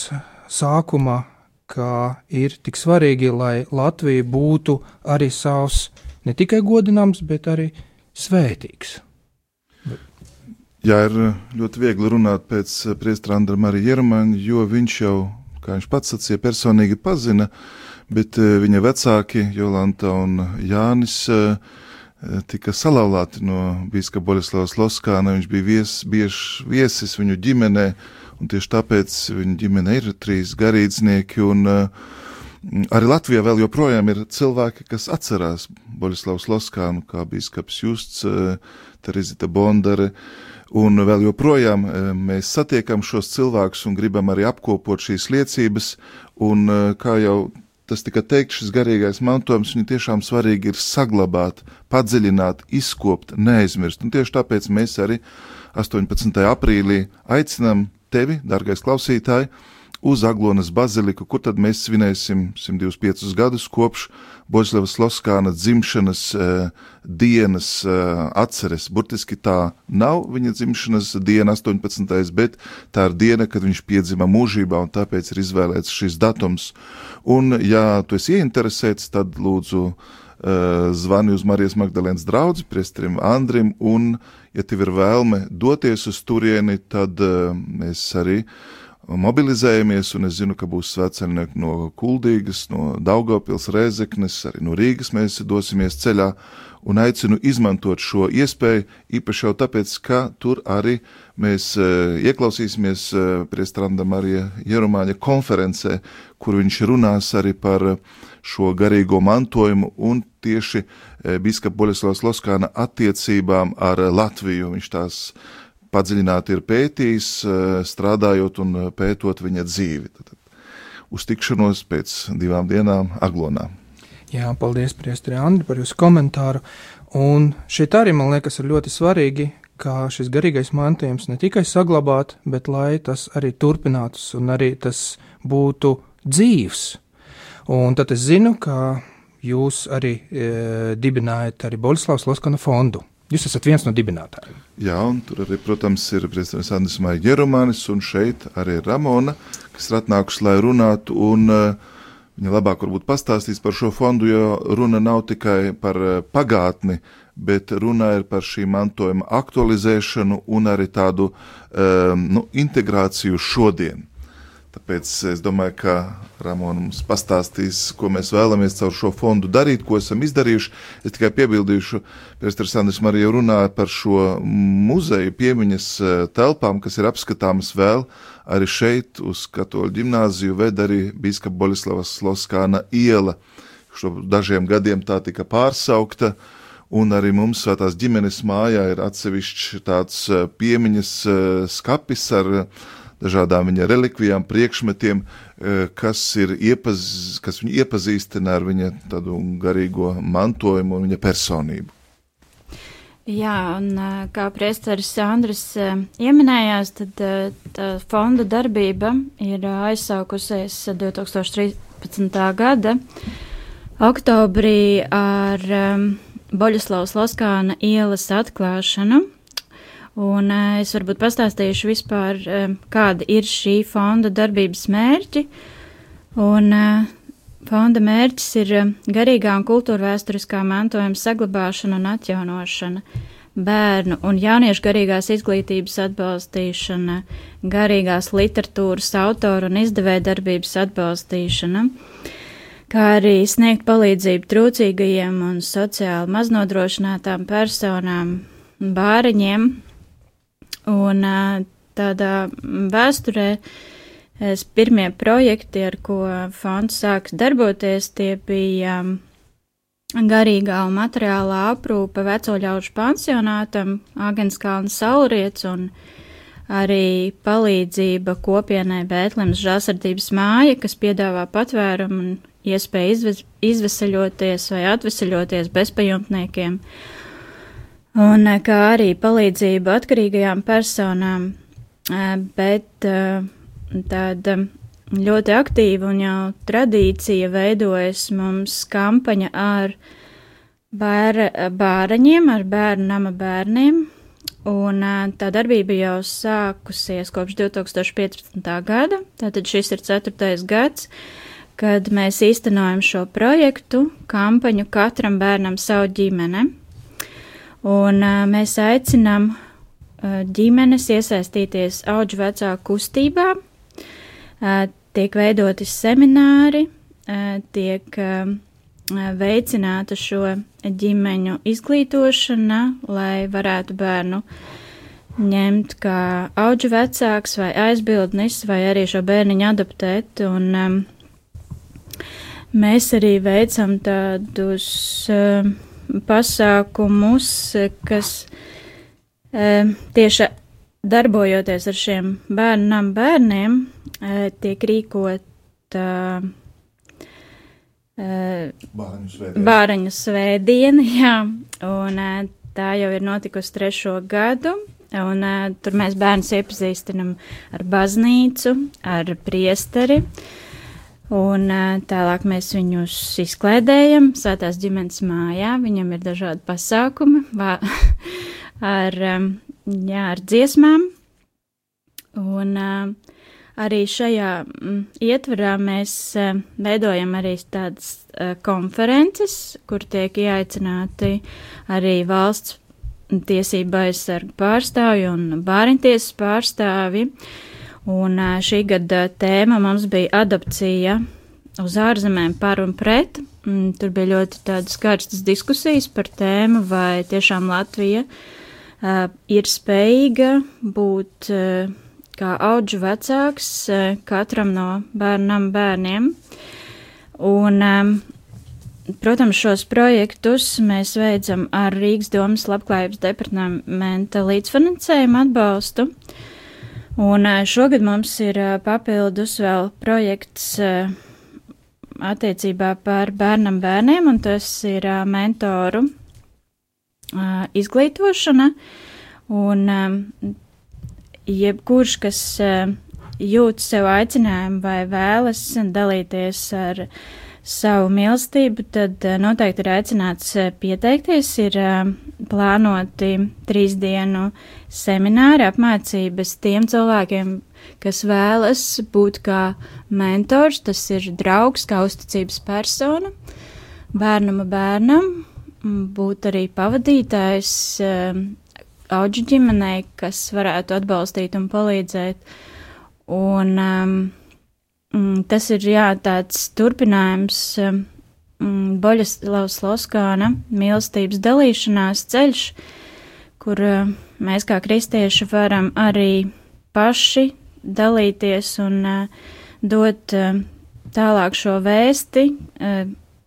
sākumā, ka ir tik svarīgi, lai Latvija būtu arī savs ne tikai godināms, bet arī svētīgs. Jā, ir ļoti viegli runāt pēc priestera Andra Marija Jerumana, jo viņš jau, kā viņš pats sacīja, personīgi pazina, bet viņa vecāki Jolanta un Jānis tika salauzti no bīskapa Boļislava Sloskāna. Viņš bija bieži viesis viņu ģimenē, un tieši tāpēc viņa ģimene ir 3 garīdznieki, un arī Latvijā vēl joprojām ir cilvēki, kas atcerās Boļislavu Sloskānu, kā bīskaps Justs, Terizita Bondare, un vēl joprojām mēs satiekam šos cilvēkus un gribam arī apkopot šīs liecības, un kā jau tas tika teikt, šis garīgais mantojums, viņu tiešām svarīgi ir saglabāt, padziļināt, izkopt, neaizmirst. Un tieši tāpēc mēs arī 18. aprīlī aicinām tevi, dārgais klausītāji, uz Aglonas baziliku, kur tad mēs svinēsim 125 gadus kopš Boļislava Sloskāna dzimšanas dienas atceres. Burtiski tā nav viņa dzimšanas diena 18. bet tā ir diena, kad viņš piedzima mūžībā, un tāpēc ir izvēlēts šis datums. Un, ja tu esi ieinteresēts, tad lūdzu zvani uz Marijas Magdalēnas draudzi, priesterim Andrim, un, ja tev ir vēlme doties uz turieni, tad mēs arī mobilizējamies, un es zinu, ka būs svētceļnieki no Kuldīgas, no Daugavpils, Rēzeknes, arī no Rīgas mēs dosimies ceļā, un aicinu izmantot šo iespēju, īpaši jau tāpēc, ka tur arī mēs ieklausīsimies priestera Andra Marija Jerumāņa konferencē, kur viņš runās arī par šo garīgo mantojumu un tieši bīskapa Boļislava Sloskāna attiecībām ar Latviju. Viņš tās padziļināti ir pētījis, strādājot un pētot viņa dzīvi. Tad uz tikšanos pēc 2 dienām Aglonā. Jā, paldies, priesteri Andri, par jūsu komentāru. Un šeit arī, man liekas, ir ļoti svarīgi, kā šis garīgais mantojums ne tikai saglabāt, bet lai tas arī turpinātos un arī tas būtu dzīvs. Un tad es zinu, ka jūs arī dibinājat arī Boļislava Sloskana fondu. Jūs esat viens no dibinātājiem. Jā, un tur arī, protams, ir priesteris Andris Marija Jerumānis, un šeit arī Ramona, kas ir atnākusi, lai runātu, un viņa labāk varbūt pastāstīs par šo fondu, jo runa nav tikai par pagātni, bet runa ir par šī mantojuma aktualizēšanu un arī tādu integrāciju šodien. Tāpēc es domāju, ka Ramona mums pastāstīs, ko mēs vēlamies caur šo fondu darīt, ko esam izdarījuši. Es tikai piebildīšu, priesteris Andris Marija jau runāja par šo muzeju piemiņas telpām, kas ir apskatāmas vēl arī šeit uz Katoļu ģimnāziju, ved arī bīskapa Boļislavas Sloskāna iela. Šo dažiem gadiem tā tika pārsaukta, un arī mums Svētās ģimenes mājā ir atsevišķs tāds piemiņas skapis ar dažādām viņa relikvijām, priekšmetiem, kas viņu iepazīstina ar viņa tādu garīgo mantojumu un viņa personību. Jā, un kā priesteris Andris ieminējās, tad tā fonda darbība ir aizsākusies 2013. gada oktobrī ar Boļislavas Sloskāna ielas atklāšanu. Un es varbūt pastāstīšu vispār, kāda ir šī fonda darbības mērķi. Un fonda mērķis ir garīgā un kultūrvēsturiskā mantojuma saglabāšana un atjaunošana, bērnu un jauniešu garīgās izglītības atbalstīšana, garīgās literatūras autoru un izdevēja darbības atbalstīšana, kā arī sniegt palīdzību trūcīgajiem un sociāli maznodrošinātām personām, bāriņiem. Un tādā vēsturē pirmie projekti, ar ko fonds sāks darboties, tie bija garīgā un materiālā aprūpe vecoļaužu pansionātam, Āgenskalna Saulriets un arī palīdzība kopienai Bētlemes žēlsirdības māja, kas piedāvā patvērumu un iespēju izveseļoties vai atveseļoties bezpajumtniekiem. Un kā arī palīdzība atkarīgajām personām, bet tāda ļoti aktīva un jau tradīcija veidojas mums kampaņa ar bāraņiem, ar bērnu nama bērniem, un tā darbība jau sākusies kopš 2015. gada, tātad šis ir 4. gads, kad mēs īstenojam šo projektu, kampaņu Katram bērnam savu ģimene. Un mēs aicinām ģimenes iesaistīties audžu vecāku kustībā, tiek veidoti semināri, tiek veicināta šo ģimeņu izglītošana, lai varētu bērnu ņemt kā audžu vecāks vai aizbildnis, vai arī šo bērniņu adoptēt. Un mēs arī veicam tādus pasākumus, kas tieši darbojoties ar šiem bērniem, tiek rīkota Bāraņu svētdiena, jā, un tā jau ir notikusi 3. gadu, un tur mēs bērnus iepazīstinam ar baznīcu, ar priesteri, un tālāk mēs viņus izklaidējam Svētās ģimenes mājā, viņam ir dažādi pasākumi ar dziesmām, un arī šajā ietvarā mēs veidojam arī tādas konferences, kur tiek ieaicināti arī valsts tiesība aizsarga pārstāvji un bāriņtiesas pārstāvji. Un šī gada tēma mums bija adopcija uz ārzemēm par un pret. Tur bija ļoti tādas karstas diskusijas par tēmu, vai tiešām Latvija ir spējīga būt kā audžu vecāks katram no bērniem. Un, protams, šos projektus mēs veicam ar Rīgas domas labklājības departamenta līdzfinansējumu atbalstu. Un šogad mums ir papildus vēl projekts attiecībā par bērniem, un tas ir mentoru izglītošana. Un jebkurš, kas jūt sev aicinājumu vai vēlas dalīties ar savu mīlestību, tad noteikti ir aicināts pieteikties. Ir plānoti 3 dienu semināri, apmācības tiem cilvēkiem, kas vēlas būt kā mentors, tas ir draugs, kā uzticības persona, bērnam, būt arī pavadītājs audžu ģimenei, kas varētu atbalstīt un palīdzēt. Un tas ir, tāds turpinājums Boļislavas Loskāna mīlestības dalīšanās ceļš, kur mēs kā kristieši varam arī paši dalīties un dot tālāk šo vēsti,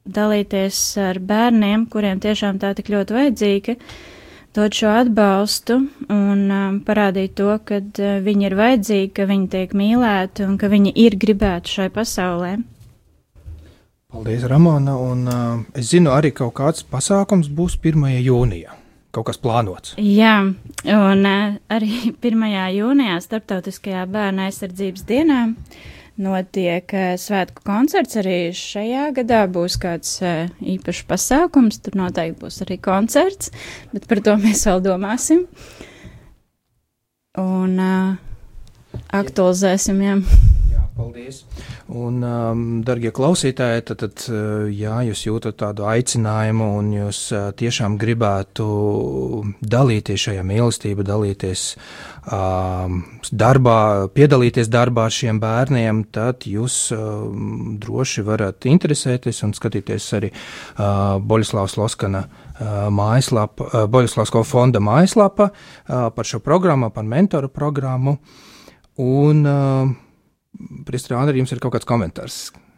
dalīties ar bērniem, kuriem tiešām tā tik ļoti vajadzīga, dot šo atbalstu un parādīt to, ka viņi ir vajadzīgi, ka viņi tiek mīlēti un ka viņi ir gribēti šai pasaulē. Paldies, Ramona, un es zinu, arī kaut kāds pasākums būs 1. jūnijā. Kaut kas plānots. Jā, un arī 1. jūnijā Starptautiskajā bērna aizsardzības dienā notiek svētku koncerts. Arī šajā gadā būs kāds īpašs pasākums, tur noteikti būs arī koncerts, bet par to mēs vēl domāsim. Un aktualizēsim, jā. Paldies. Un, dargie klausītāji, tad, jā, jūs jūtat tādu aicinājumu un jūs tiešām gribētu dalīties šajā mīlestībā, dalīties darbā, piedalīties darbā ar šiem bērniem, tad jūs droši varat interesēties un skatīties arī Boļislavas Loskana mājaslapa, Boļislavsko fonda mājaslapa par šo programmu, par mentoru programmu. Un Priestri Andri, jums ir kaut kāds komentārs?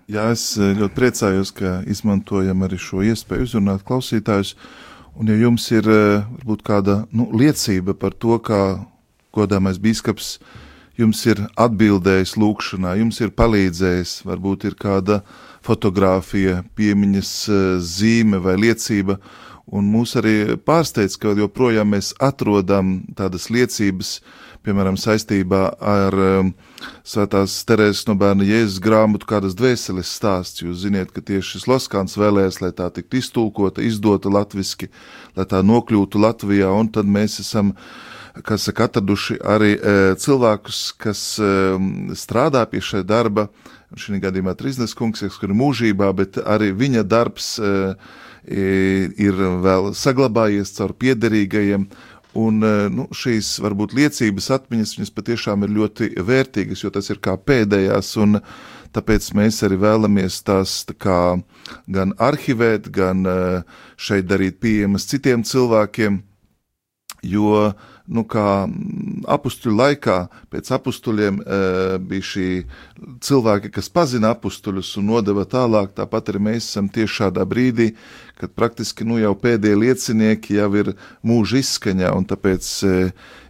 Jā, es ļoti priecājos, ka izmantojam arī šo iespēju uzrunāt klausītājus, un ja jums ir varbūt kāda liecība par to, kā godāmais bīskaps jums ir atbildējis lūkšanā, jums ir palīdzējis, varbūt ir kāda fotogrāfija, piemiņas zīme vai liecība, un mūs arī pārsteidz, ka joprojām mēs atrodam tādas liecības, piemēram, saistībā ar Svētās Terēzes no Bērna Jēzus grāmatu kādas dvēseles stāsts. Jūs ziniet, ka tieši šis Loskāns vēlējās, lai tā tiktu iztulkota, izdota latviski, lai tā nokļūtu Latvijā, un tad mēs esam, kas saka, atraduši arī cilvēkus, kas strādā pie šai darba, šī gadījumā Triznes kungs, kas ir mūžībā, bet arī viņa darbs ir vēl saglabājies caur piederīgajiem. Un šīs varbūt liecības atmiņas, viņas patiešām ir ļoti vērtīgas, jo tas ir kā pēdējās, un tāpēc mēs arī vēlamies tās kā gan arhivēt, gan šeit darīt pieejamas citiem cilvēkiem, jo, kā apustuļu laikā, pēc apustuļiem bija šī cilvēki, kas pazina apustuļus un nodeva tālāk, tāpat arī mēs esam tieši šādā brīdī, kad praktiski jau pēdējie liecinieki jau ir mūža izskaņā, un tāpēc,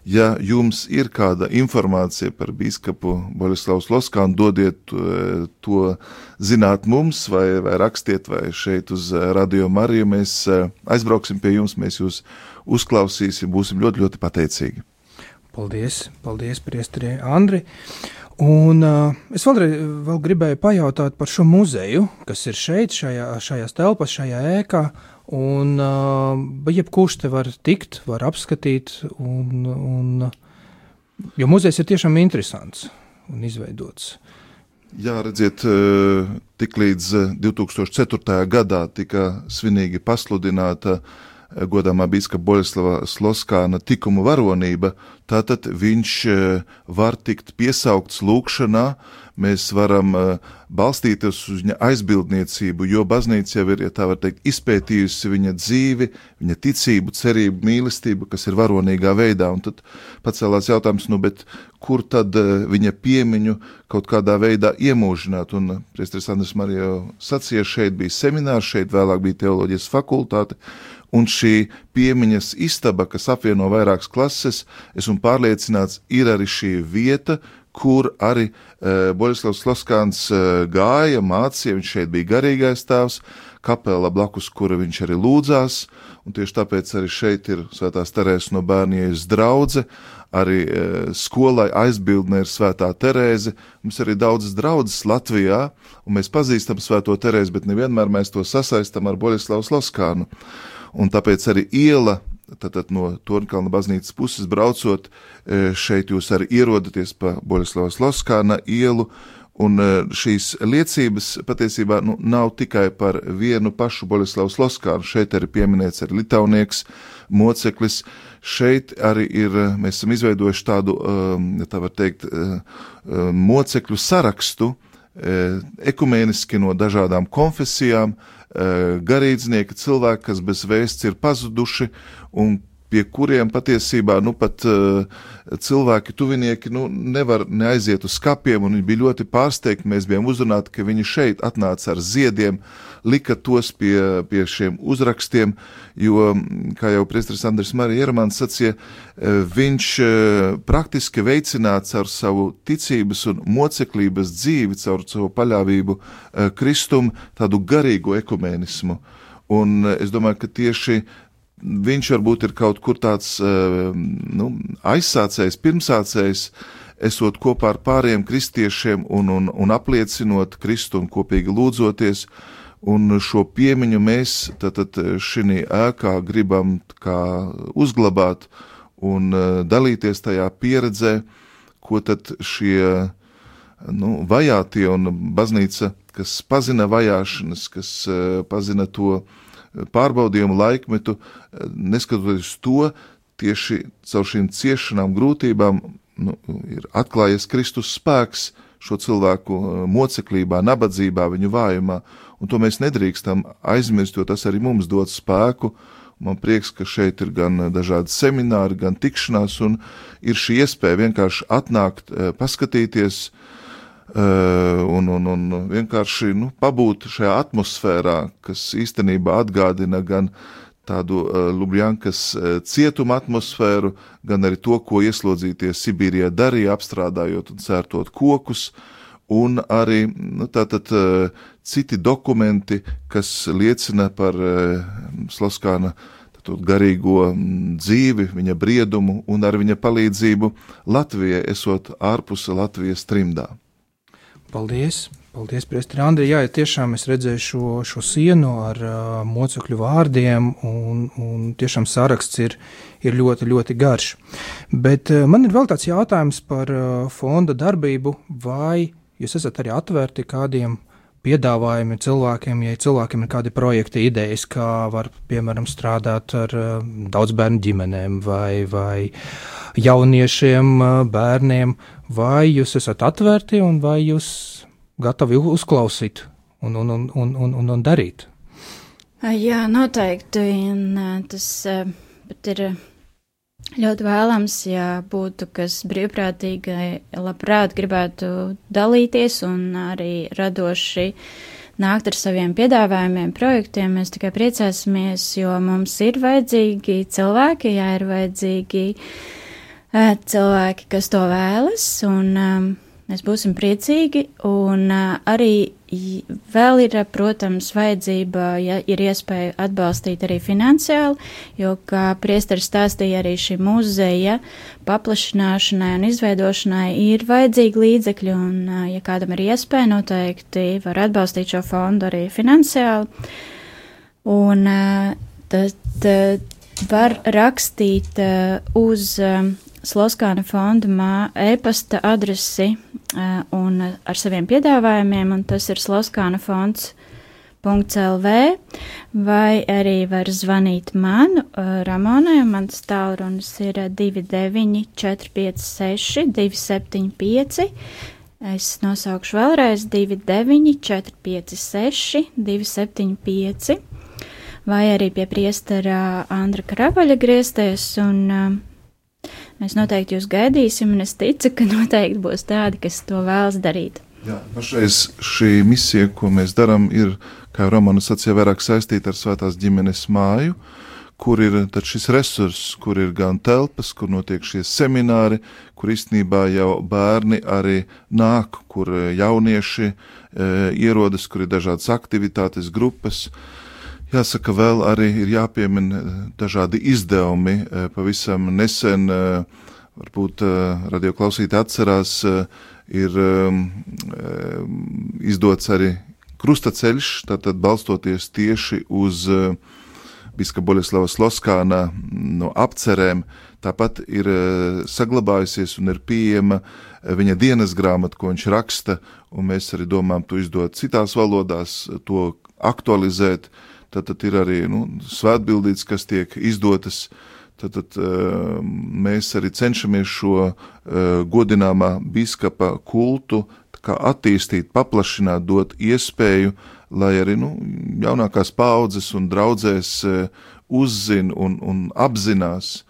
ja jums ir kāda informācija par bīskapu Boļislavas Loskānu, dodiet to zināt mums, vai rakstiet, vai šeit uz Radio Mariju, mēs aizbrauksim pie jums, mēs jūs uzklausīsim, būsim ļoti, ļoti pateicīgi. Paldies, priestri Andri. Un es vēl gribēju pajautāt par šo muzeju, kas ir šeit, šajās telpas, šajā ēkā, un jebkurš te var tikt, var apskatīt, jo muzejs ir tiešām interesants un izveidots. Jā, redziet, tik līdz 2004. gadā tika svinīgi pasludināta godāmā bīskapa Boļislava Loskāna tikuma varonība, tātad viņš var tikt piesaukts lūkšanā, mēs varam balstīties uz viņa aizbildniecību, jo baznīca jau ir, ja tā var teikt, izpētījusi viņa dzīvi, viņa ticību, cerību, mīlestību, kas ir varonīgā veidā, un tad pacēlās jautājums, bet kur tad viņa piemiņu kaut kādā veidā iemūžināt, un priesteris Andris Marija jau sacīja, šeit bija seminārs, šeit vēlāk bija teoloģijas fakultāte, un šī piemiņas istaba, kas apvieno vairākas klases, esmu pārliecināts, ir arī šī vieta, kur arī Boļislavs Loskāns gāja, mācīja, viņš šeit bija garīgais tēvs, kapela blakus, kura viņš arī lūdzās, un tieši tāpēc arī šeit ir Svētās Terēzes no Bērna Jēzus draudze, arī skolai aizbildne ir Svētā Terēze, mums arī daudzas draudzes Latvijā, un mēs pazīstam Svēto Terēzi, bet nevienmēr mēs to sasaistam ar Boļislavas Loskānu. Un tāpēc arī iela, tātad no Torņkalna baznīcas puses braucot, šeit jūs arī ierodaties pa Boļislavas Loskāna ielu, un šīs liecības patiesībā nav tikai par vienu pašu Boļislavas Loskānu, šeit arī pieminēts arī Litaunieks, moceklis, šeit arī mēs esam izveidojuši tādu, tā var teikt, mocekļu sarakstu, ekumēniski no dažādām konfesijām, garīdznieki, cilvēki, kas bez vēsts ir pazuduši un pie kuriem patiesībā pat cilvēki, tuvinieki nevar neaiziet uz skapiem, un viņi bija ļoti pārsteigti. Mēs bijām uzrunāti, ka viņi šeit atnāca ar ziediem, lika tos pie šiem uzrakstiem, jo, kā jau priesteris Andris Marija Iermans sacīja, viņš praktiski veicināts ar savu ticības un moceklības dzīvi, caur savu paļāvību Kristum, tādu garīgu ekumēnismu. Un es domāju, ka tieši viņš varbūt ir kaut kur tāds aizsācējs, pirmsācējs, esot kopā ar pāriem kristiešiem un apliecinot Kristu un kopīgi lūdzoties, un šo piemiņu mēs tad šī ēkā gribam kā uzglabāt un dalīties tajā pieredzē, ko tad šie vajātie un baznīca, kas pazina vajāšanas, kas pazina to pārbaudījumu laikmetu, neskatoties to, tieši caur šīm ciešanām, grūtībām, ir atklājies Kristus spēks šo cilvēku moceklībā, nabadzībā, viņu vājumā, un to mēs nedrīkstam aizmirst, jo tas arī mums dod spēku. Man prieks, ka šeit ir gan dažādi semināri, gan tikšanās, un ir šī iespēja vienkārši atnākt, paskatīties, un vienkārši pabūt šajā atmosfērā, kas īstenībā atgādina gan tādu Lubjankas cietuma atmosfēru, gan arī to, ko ieslodzītie Sibīrijā darīja, apstrādājot un cērtot kokus, un arī tātad citi dokumenti, kas liecina par Sloskāna garīgo dzīvi, viņa briedumu un ar viņa palīdzību Latvijai, esot ārpus Latvijas trimdā. Paldies, priesteri Andri. Jā, tiešām es redzēju šo sienu ar mocekļu vārdiem, un tiešām saraksts ir ļoti, ļoti garš. Bet man ir vēl tāds jautājums par fonda darbību, vai jūs esat arī atvērti kādiem piedāvājumi cilvēkiem, ja cilvēkiem ir kādi projekti, idejas, kā var, piemēram, strādāt ar daudzbērnu ģimenēm vai jauniešiem, bērniem, vai jūs esat atvērti un vai jūs gatavi uzklausīt un darīt? Jā, noteikti, un tas pat ir ļoti vēlams, ja būtu kas brīvprātīgi labprāt gribētu dalīties un arī radoši nākt ar saviem piedāvājumiem, projektiem. Mēs tikai priecāsimies, jo mums ir vajadzīgi cilvēki, ir vajadzīgi cilvēki, kas to vēlas, un mēs būsim priecīgi, un arī vēl ir, protams, vajadzība, ja ir iespēja atbalstīt arī finansiāli, jo, kā priesteris stāstīja, arī šī muzeja paplašināšanai un izveidošanai ir vajadzīgi līdzekļi, un, ja kādam ir iespēja, noteikti var atbalstīt šo fondu arī finansiāli, un tad var rakstīt uz Sloskāna fonda e-pasta adresi un ar saviem piedāvājumiem, un tas ir sloskānafonds.lv, vai arī var zvanīt man, Ramonai, mans tālrunis ir 29 456 275, es nosaukšu vēlreiz 29 456 275, vai arī pie priestera Andra Kravaļa griezties, un mēs noteikti jūs gaidīsim, un es ticu, ka noteikti būs tādi, kas to vēlas darīt. Jā, pašreiz šī misija, ko mēs darām, ir, kā Romana sacīja, vairāk saistīta ar Svētās ģimenes māju, kur ir tad šis resurss, kur ir gan telpas, kur notiek šie semināri, kur īstenībā jau bērni arī nāk, kur jaunieši ierodas, kur ir dažādas aktivitātes, grupas. Jāsaka, vēl arī ir jāpiemina dažādi izdevumi. Pavisam nesen, varbūt radioklausītāji atcerās, ir izdots arī krustaceļš, tātad balstoties tieši uz biskupa Boļeslava Sloskāna apcerēm. Tāpat ir saglabājusies un ir pieejama viņa dienas grāmata, ko viņš raksta, un mēs arī domājam to izdot citās valodās, to aktualizēt. Tad ir arī svētbildītes, kas tiek izdotas. Tad mēs arī cenšamies šo godināmā biskupa kultu kā attīstīt, paplašināt, dot iespēju, lai arī jaunākās paudzes un draudzēs uzzina un apzinās.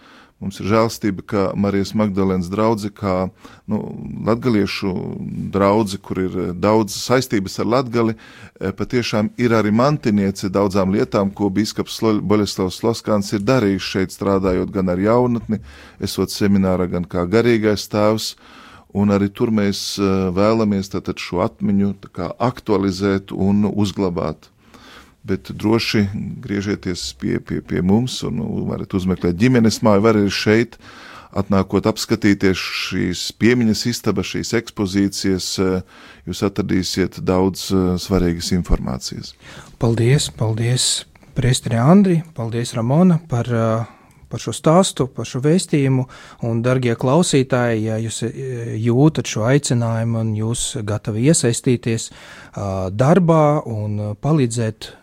Mums ir žēlstība, ka Marijas Magdalēnas draudze, kā latgaliešu draudze, kur ir daudz saistības ar Latgali, patiešām ir arī mantiniece daudzām lietām, ko bīskaps Boļeslavs Sloskāns ir darījis šeit, strādājot gan ar jaunatni, esot seminārā, gan kā garīgais tēvs, un arī tur mēs vēlamies tātad šo atmiņu tā kā aktualizēt un uzglabāt. Bet droši griežieties pie mums un varat uzmeklēt ģimenes māju, var arī šeit, atnākot apskatīties šīs piemiņas istabas, šīs ekspozīcijas, jūs atradīsiet daudz svarīgas informācijas. Paldies, priesteri Andri, paldies Ramona par šo stāstu, par šo vēstījumu, un, dargie klausītāji, ja jūs jūtat šo aicinājumu un jūs gatavi iesaistīties darbā un palīdzēt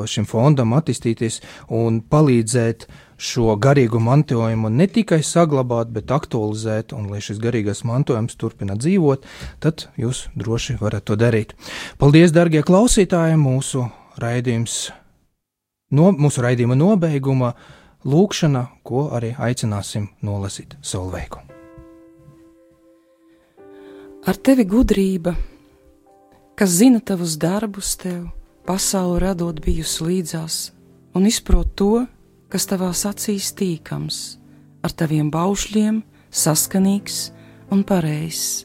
šim fondam attīstīties un palīdzēt šo garīgo mantojumu ne tikai saglabāt, bet aktualizēt, un lai šis garīgais mantojums turpina dzīvot, tad jūs droši varat to darīt. Paldies, dargie klausītāji, mūsu raidījuma nobeiguma lūkšana, ko arī aicināsim nolasīt Solveigu. Ar tevi gudrība, kas zina tavus darbus tev, pasauli radot bijusi līdzās, un izprot to, kas tavās acīs tīkams, ar taviem baušļiem saskanīgs un pareizs.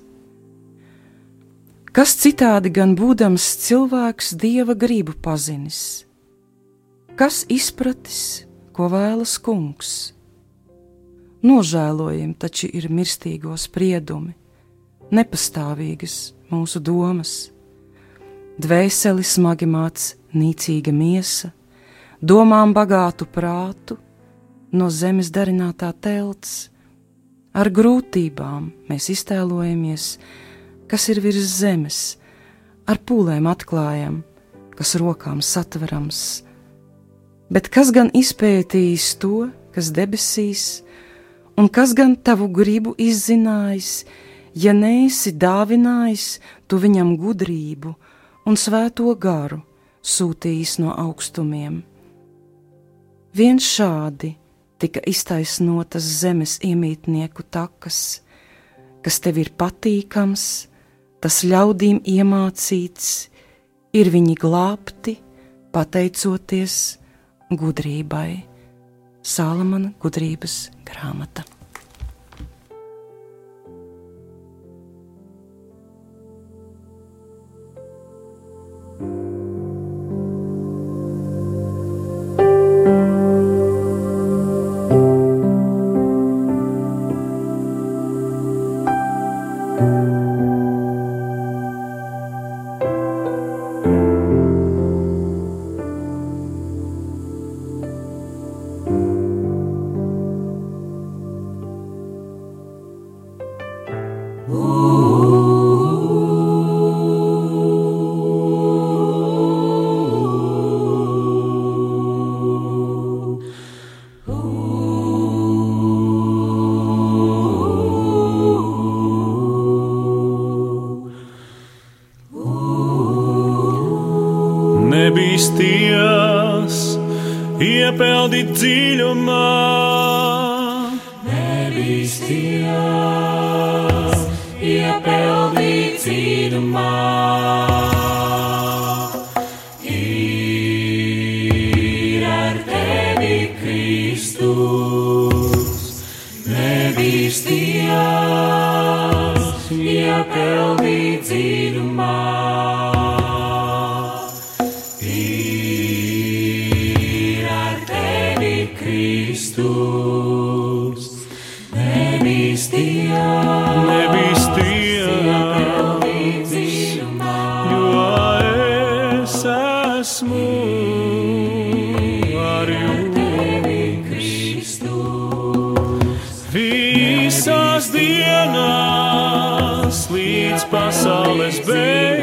Kas citādi gan būdams cilvēks Dieva gribu pazinis? Kas izpratis, ko vēlas kungs? Nožēlojami taču ir mirstīgo spriedumi, nepastāvīgas mūsu domas. Dvēseli smagi māc nīcīga miesa, domām bagātu prātu, no zemes darinātā telts. Ar grūtībām mēs iztēlojamies, kas ir virs zemes, ar pūlēm atklājam, kas rokām satverams. Bet kas gan izpētījis to, kas debesīs, un kas gan tavu gribu izzinājis, ja neesi dāvinājis tu viņam gudrību un svēto garu sūtījis no augstumiem. Vien šādi tika iztaisnotas zemes iemītnieku takas, kas tev ir patīkams, tas ļaudīm iemācīts, ir viņi glābti, pateicoties gudrībai. Salamana gudrības grāmata. Nebīsties, iepeldi dziļumā. Nebīsties, iepeldi dziļumā. Ir ar tevi Kristus. Nebīsties, iepeldi dziļumā. Kristus, nebīsties, jo es esmu ar jums. Visās dienās līdz pasaules beigām.